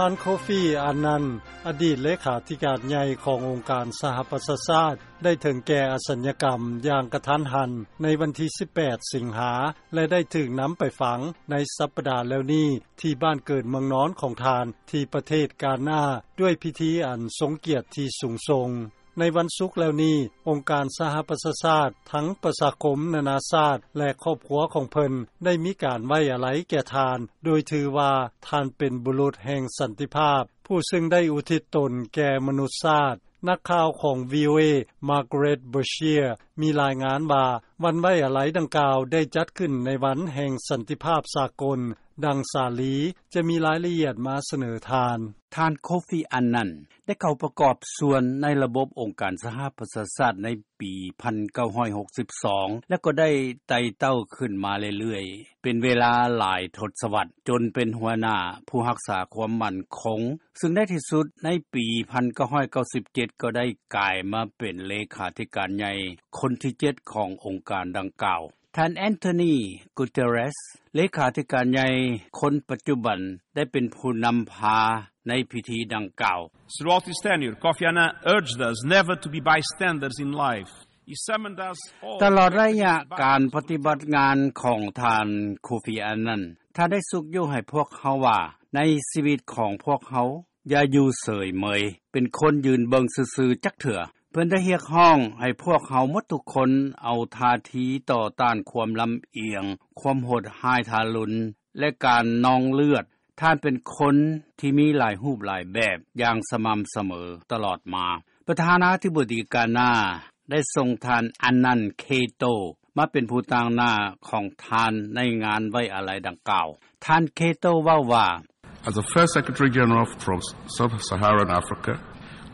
ທ່ານ ໂຄຟີ ອານນັນ ອະດີດເລຂາທິການໃຫຍ່ຂອງອົງການສະຫະປະຊາຊາດ ໄດ້ເຖິງແກ່ອະສັນຍະກຳຢ່າງກະທັນຫັນໃນວັນທີສິບແປດ ສິງຫາ ແລະ ໄດ້ຖືກນຳໄປຝັງໃນສັບປະດາແລ້ວນີ້ ທີ່ບ້ານເກີດເມືອງນອນຂອງທ່ານ ທີ່ປະເທດການາ ດ້ວຍພິທີອັນຊົງກຽດທີ່ສູງສົ່ງ. ໃນວັນສຸກແລ້ວນີ້ ອົງການສະຫະປະຊາຊາດ ທັງປະຊາຄົມນານາຊາດ ແລະ ຄອບຄົວຂອງເພິ່ນ ໄດ້ມີການໄວ້ອາໄລແກ່ທ່ານ ໂດຍຖືວ່າທ່ານເປັນບຸລຸດແຫ່ງສັນຕິພາບ ຜູ້ຊຶ່ງໄດ້ອຸທິດຕົນແກ່ມະນຸດຊາດ. ນັກຂ່າວຂອງ VOA Margaret Beshear ມີລາຍງານວ່າ ວັນໄວ້ອາໄລດັ່ງກ່າວໄດ້ຈັດຂຶ້ນໃນວັນແຫ່ງສັນຕິພາບສາກົນ. ດັ່ງສາລີຈະມີລາຍລະອຽດມາສະເໜີທ່ານ. ທ່ານ ໂຄຟີ ອານນັນ ໄດ້ເຂົ້າປະກອບສ່ວນໃນລະບົບອົງການສະຫະປະຊາຊາດໃນປີພັນເກົ້າຮ້ອຍຫົກສິບສອງ ແລະ ກໍໄດ້ໄຕ່ເຕົ້າຂຶ້ນມາເລື້ອຍໆ ເປັນເວລາຫຼາຍທົດສະວັດ ຈົນເປັນຫົວໜ້າຜູ້ຮັກສາຄວາມໝັ້ນຄົງ ຊຶ່ງໃນທີ່ສຸດໃນປີພັນເກົ້າຮ້ອຍເກົ້າສິບເຈັດ ກໍໄດ້ກາຍມາເປັນເລຂາທິການໃຫຍ່ຄົນທີເຈັດຂອງອົງການດັ່ງກ່າວ. ທ່ານ António Guterres ເລຂາທິການໃຫຍ່ຄົນປັດຈຸບັນ ໄດ້ເປັນຜູ້ນຳພາໃນພິທີດັ່ງກ່າວ. Throughout his tenure, Kofi Annan urged us never to be bystanders in life. He summoned us all ຕະຫຼອດໄລຍະການປະຕິບັດງານຂອງທ່ານ ໂຄຟີ ອານນັນ ທ່ານໄດ້ຊຸກຍູ້ໃຫ້ພວກເຮົາວ່າ ໃນຊີວິດຂອງພວກເຮົາ ຢ່າຢູ່ເສີຍເໝີຍ ເປັນຄົນຢືນເບິ່ງຊື່ໆຈັກເທື່ອ. ເພິ່ນໄດ້ຮຽກຮ້ອງໃຫ້ພວກເຮົາໝົດທຸກຄົນເອົາທ່າທີຕໍ່ຕ້ານຄວາມລຳອຽງ, ຄວາມໂຫດຮ້າຍທາລຸນ ແລະ ການນອງເລືອດ. ທ່ານເປັນຄົນທີ່ມີຫຼາຍຮູບຫຼາຍແບບຢ່າງສະໝ່ຳສະເໝີຕະຫຼອດມາ. ປະທານາທິບໍດີການາ ໄດ້ສົ່ງທ່ານ ອານນັນ ເຄໂຕ ມາເປັນຜູ້ຕາງໜ້າຂອງທ່ານໃນງານໄວ້ອາໄລດັ່ງກ່າວ. ທ່ານ ເຄໂຕ ເວົ້າວ່າ As the first Secretary General from Sub-Saharan Africa,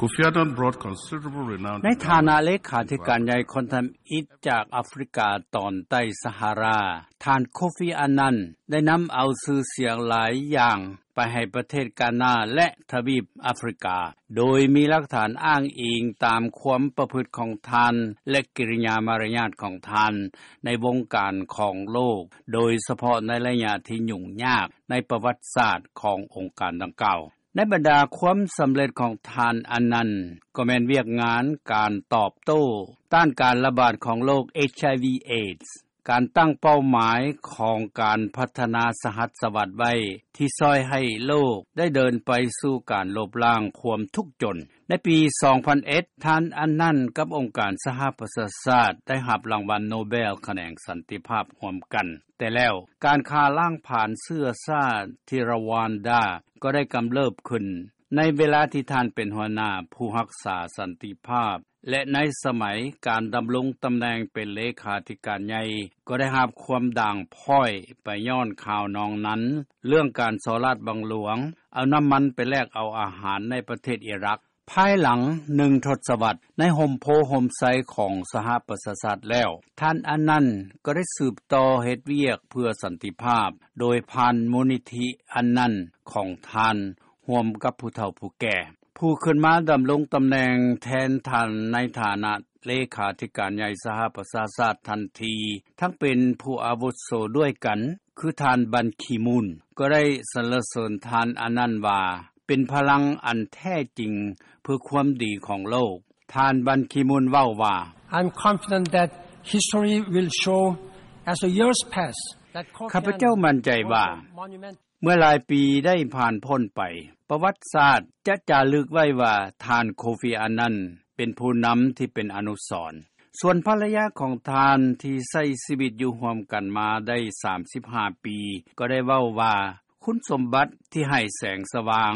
Kofi Annan brought considerable renown ໃນຖານະເລຂາທິການໃຫຍ່ຄົນທຳອິດຈາກອາຟຣິກາຕອນໃຕ້ສະຫາຣາ, ທ່ານ ໂຄຟີ ອານນັນ ໄດ້ນຳເອົາຊື່ສຽງຫຼາຍຢ່າງໄປໃຫ້ປະເທດການາ ແລະ ທະວີບອາຟຣິກາ, ໂດຍມີຫຼັກຖານອ້າງອີງຕາມຄວາມປະພຶດຂອງທ່ານ ແລະ ກິລິຍາມາລະຍາດຂອງທ່ານ ໃນວົງການຂອງໂລກ, ໂດຍສະເພາະໃນໄລຍະທີ່ຫຍຸ້ງຍາກໃນປະຫວັດສາດຂອງອົງການດັ່ງກ່າວ. ໃນບັນດາຄວາມສຳເລັດຂອງທ່ານ ອານນັນ ກໍແມ່ນວຽກງານການຕອບໂຕ້ຕ້ານການລະບາດຂອງໂລກ ເອດສ໌ ການຕັ້ງເປົ້າໝາຍຂອງການພັດທະນາສະຫັດສະຫວັດໄວ້ ທີ່ຊ່ອຍໃຫ້ໂລກໄດ້ເດີນໄປສູ່ການລົບລ້າງຄວາມທຸກຈົນ. ໃນປີສອງພັນເອັດ ທ່ານ ອານນັນ ກັບອົງການສະຫະປະຊາຊາດ ໄດ້ຮັບລາງວັນໂນເບລຂະແໜງສັນຕິພາບຮ່ວມກັນ. ແຕ່ແລ້ວ ການຂ້າລ້າງຜານເຊື້ອຊາດທີ່ຣະວານດາ ກໍໄດ້ກຳເລີບຂຶ້ນ ໃນເວລາທີ່ທ່ານເປັນຫົວໜ້າຜູ້ຮັກສາສັນຕິພາບ ແລະ ໃນສະໄໝການດຳລົງຕຳແໜ່ງເປັນເລຂາທິການໃຫຍ່ ກໍໄດ້ຮັບຄວາມດ່າງພ້ອຍໄປຍ້ອນຂ່າວນອງນັ້ນ ເລື່ອງການສໍ້ລາດບັງຫຼວງ ເອົານ້ຳມັນໄປແລກເອົາອາຫານໃນປະເທດອີຣັກ. ພາຍຫຼັງໜຶ່ງທົດສະວັດ ໃນຮົ່ມໂພຮົ່ມໄຊຂອງສະຫະປະຊາຊາດແລ້ວ, ທ່ານ ອານນັນ ກໍໄດ້ສືບຕໍ່ເຮັດວຽກເພື່ອສັນຕິພາບ ໂດຍຜ່ານມູນນິທິ ອານນັນ ຂອງທ່ານ ຮ່ວມກັບຜູ້ເຖົ້າຜູ້ແກ່. ຜູ້ຂຶ້ນມາດຳລົງຕຳແໜ່ງແທນທ່ານໃນຖານະເລຂາທິການໃຫຍ່ສະຫະປະຊາຊາດທັນທີ ທັງເປັນຜູ້ອາວຸດໂສດ້ວຍກັນ ຄືທ່ານ ບັນ ຄີມູນ ກໍໄດ້ສັນລະເສີນທ່ານ ອານນັນ ວ່າ ເປັນພະລັງອັນແທ້ຈິງເພື່ອຄວາມດີຂອງໂລກ. ທ່ານ ບັນ ຄີມູນ ເວົ້າວ່າ I'm confident that history will show as the years pass that ຂ້າພະເຈົ້າໝັ້ນໃຈວ່າ ເມື່ອຫຼາຍປີໄດ້ຜ່ານພົ້ນໄປ, ປະຫວັດສາດຈະຈາລຶກໄວ້ວ່າ ທ່ານ ໂຄຟີ ອານນັນ ເປັນຜູ້ນຳທີ່ເປັນອະນຸສອນ. ສ່ວນພັນລະຍາຂອງທ່ານທີ່ໃຊ້ຊີວິດຢູ່ຮ່ວມກັນມາໄດ້ສາມສິບຫ້າປີ ກໍໄດ້ເວົ້າວ່າ ຄຸນສົມບັດທີ່ໃຫ້ແສງສະຫວ່າງ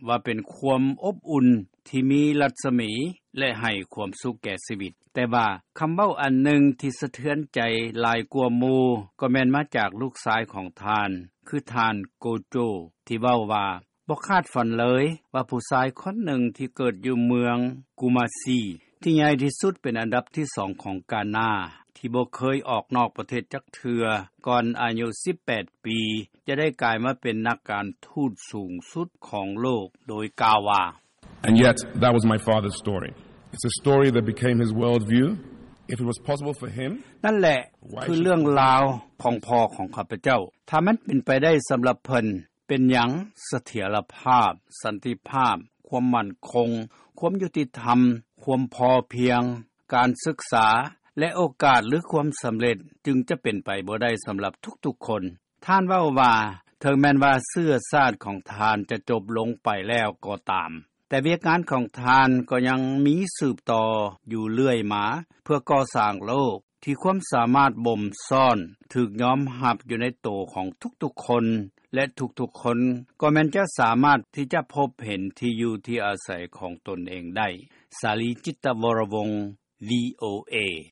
ວ່າເປັນຄວາມອົບອຸ່ນທີ່ມີລັດສະໝີ ແລະ ໃຫ້ຄວາມສຸກແກ່ຊີວິດ. ແຕ່ວ່າຄຳເວົ້າອັນໜຶ່ງທີ່ສະເທືອນໃຈຫຼາຍກວ່າໝູ່ ກໍແມ່ນມາຈາກລູກຊາຍຂອງທ່ານ ຄືທ່ານ ໂກໂຈ ທີ່ເວົ້າວ່າ ບໍ່ຄາດຝັນເລີຍວ່າຜູ້ຊາຍຄົນໜຶ່ງທີ່ເກີດຢູ່ເມືອງກູມາຊີ ທີ່ໃຫຍ່ທີ່ສຸດເປັນອັນດັບທີສອງຂອງການາ ທີ່ບໍ່ເຄີຍອອກນອກປະເທດຈັກເທື່ອກ່ອນອາຍຸສິບແປດປີ ຈະໄດ້ກາຍມາເປັນນັກການທູດສູງສຸດຂອງໂລກ ໂດຍກ່າວວ່າ And yet, that was my father's story. It's a story that became his worldview. If it was possible for him, ນັ້ນແຫຼະຄືເລື່ອງລາວຂອງພໍ່ຂອງຂ້າພະເຈົ້າ. ຖ້າມັນເປັນໄປໄດ້ສຳລັບເພິ່ນ, ເ ປັນຫຍັງ ສະຖຽນຣະພາບ, ສັນຕິພາບ, ຄວາມໝັ້ນຄົງ, ຄວາມຍຸຕິທຳ, ຄວາມພໍພຽງ, ການສຶກສາ ແລະໂອກາດຫຼືຄວາມສຳເລັດ ຈຶ່ງຈະເປັນໄປບໍ່ໄດ້ສຳລັບທຸກໆຄົນ. ທ່ານເວົ້າວ່າ ເຖິງແມ່ນວ່າເຊື້ອຊາດຂອງທ່ານຈະຈົບລົງໄປແລ້ວກໍຕາມ ແຕ່ວຽກງານຂອງທ່ານກໍຍັງມີສືບຕໍ່ຢູ່ເລື້ອຍມາ ເພື່ອກໍ່ສ້າງໂລກ ທີ່ຄວາມສາມາດບົ່ມຊ້ອນ ຖືກຍອມຮັບຢູ່ໃນໂຕຂອງທຸກໆຄົນ ແລະທຸກໆຄົນ ກໍແມ່ນຈະສາມາດທີ່ຈະພົບເຫັນທີ່ຢູ່ທີ່ອາໄສຂອງຕົນເອງໄດ້. ສາລີ ຈິດຕະວໍຣະວົງ ວີໂອເອ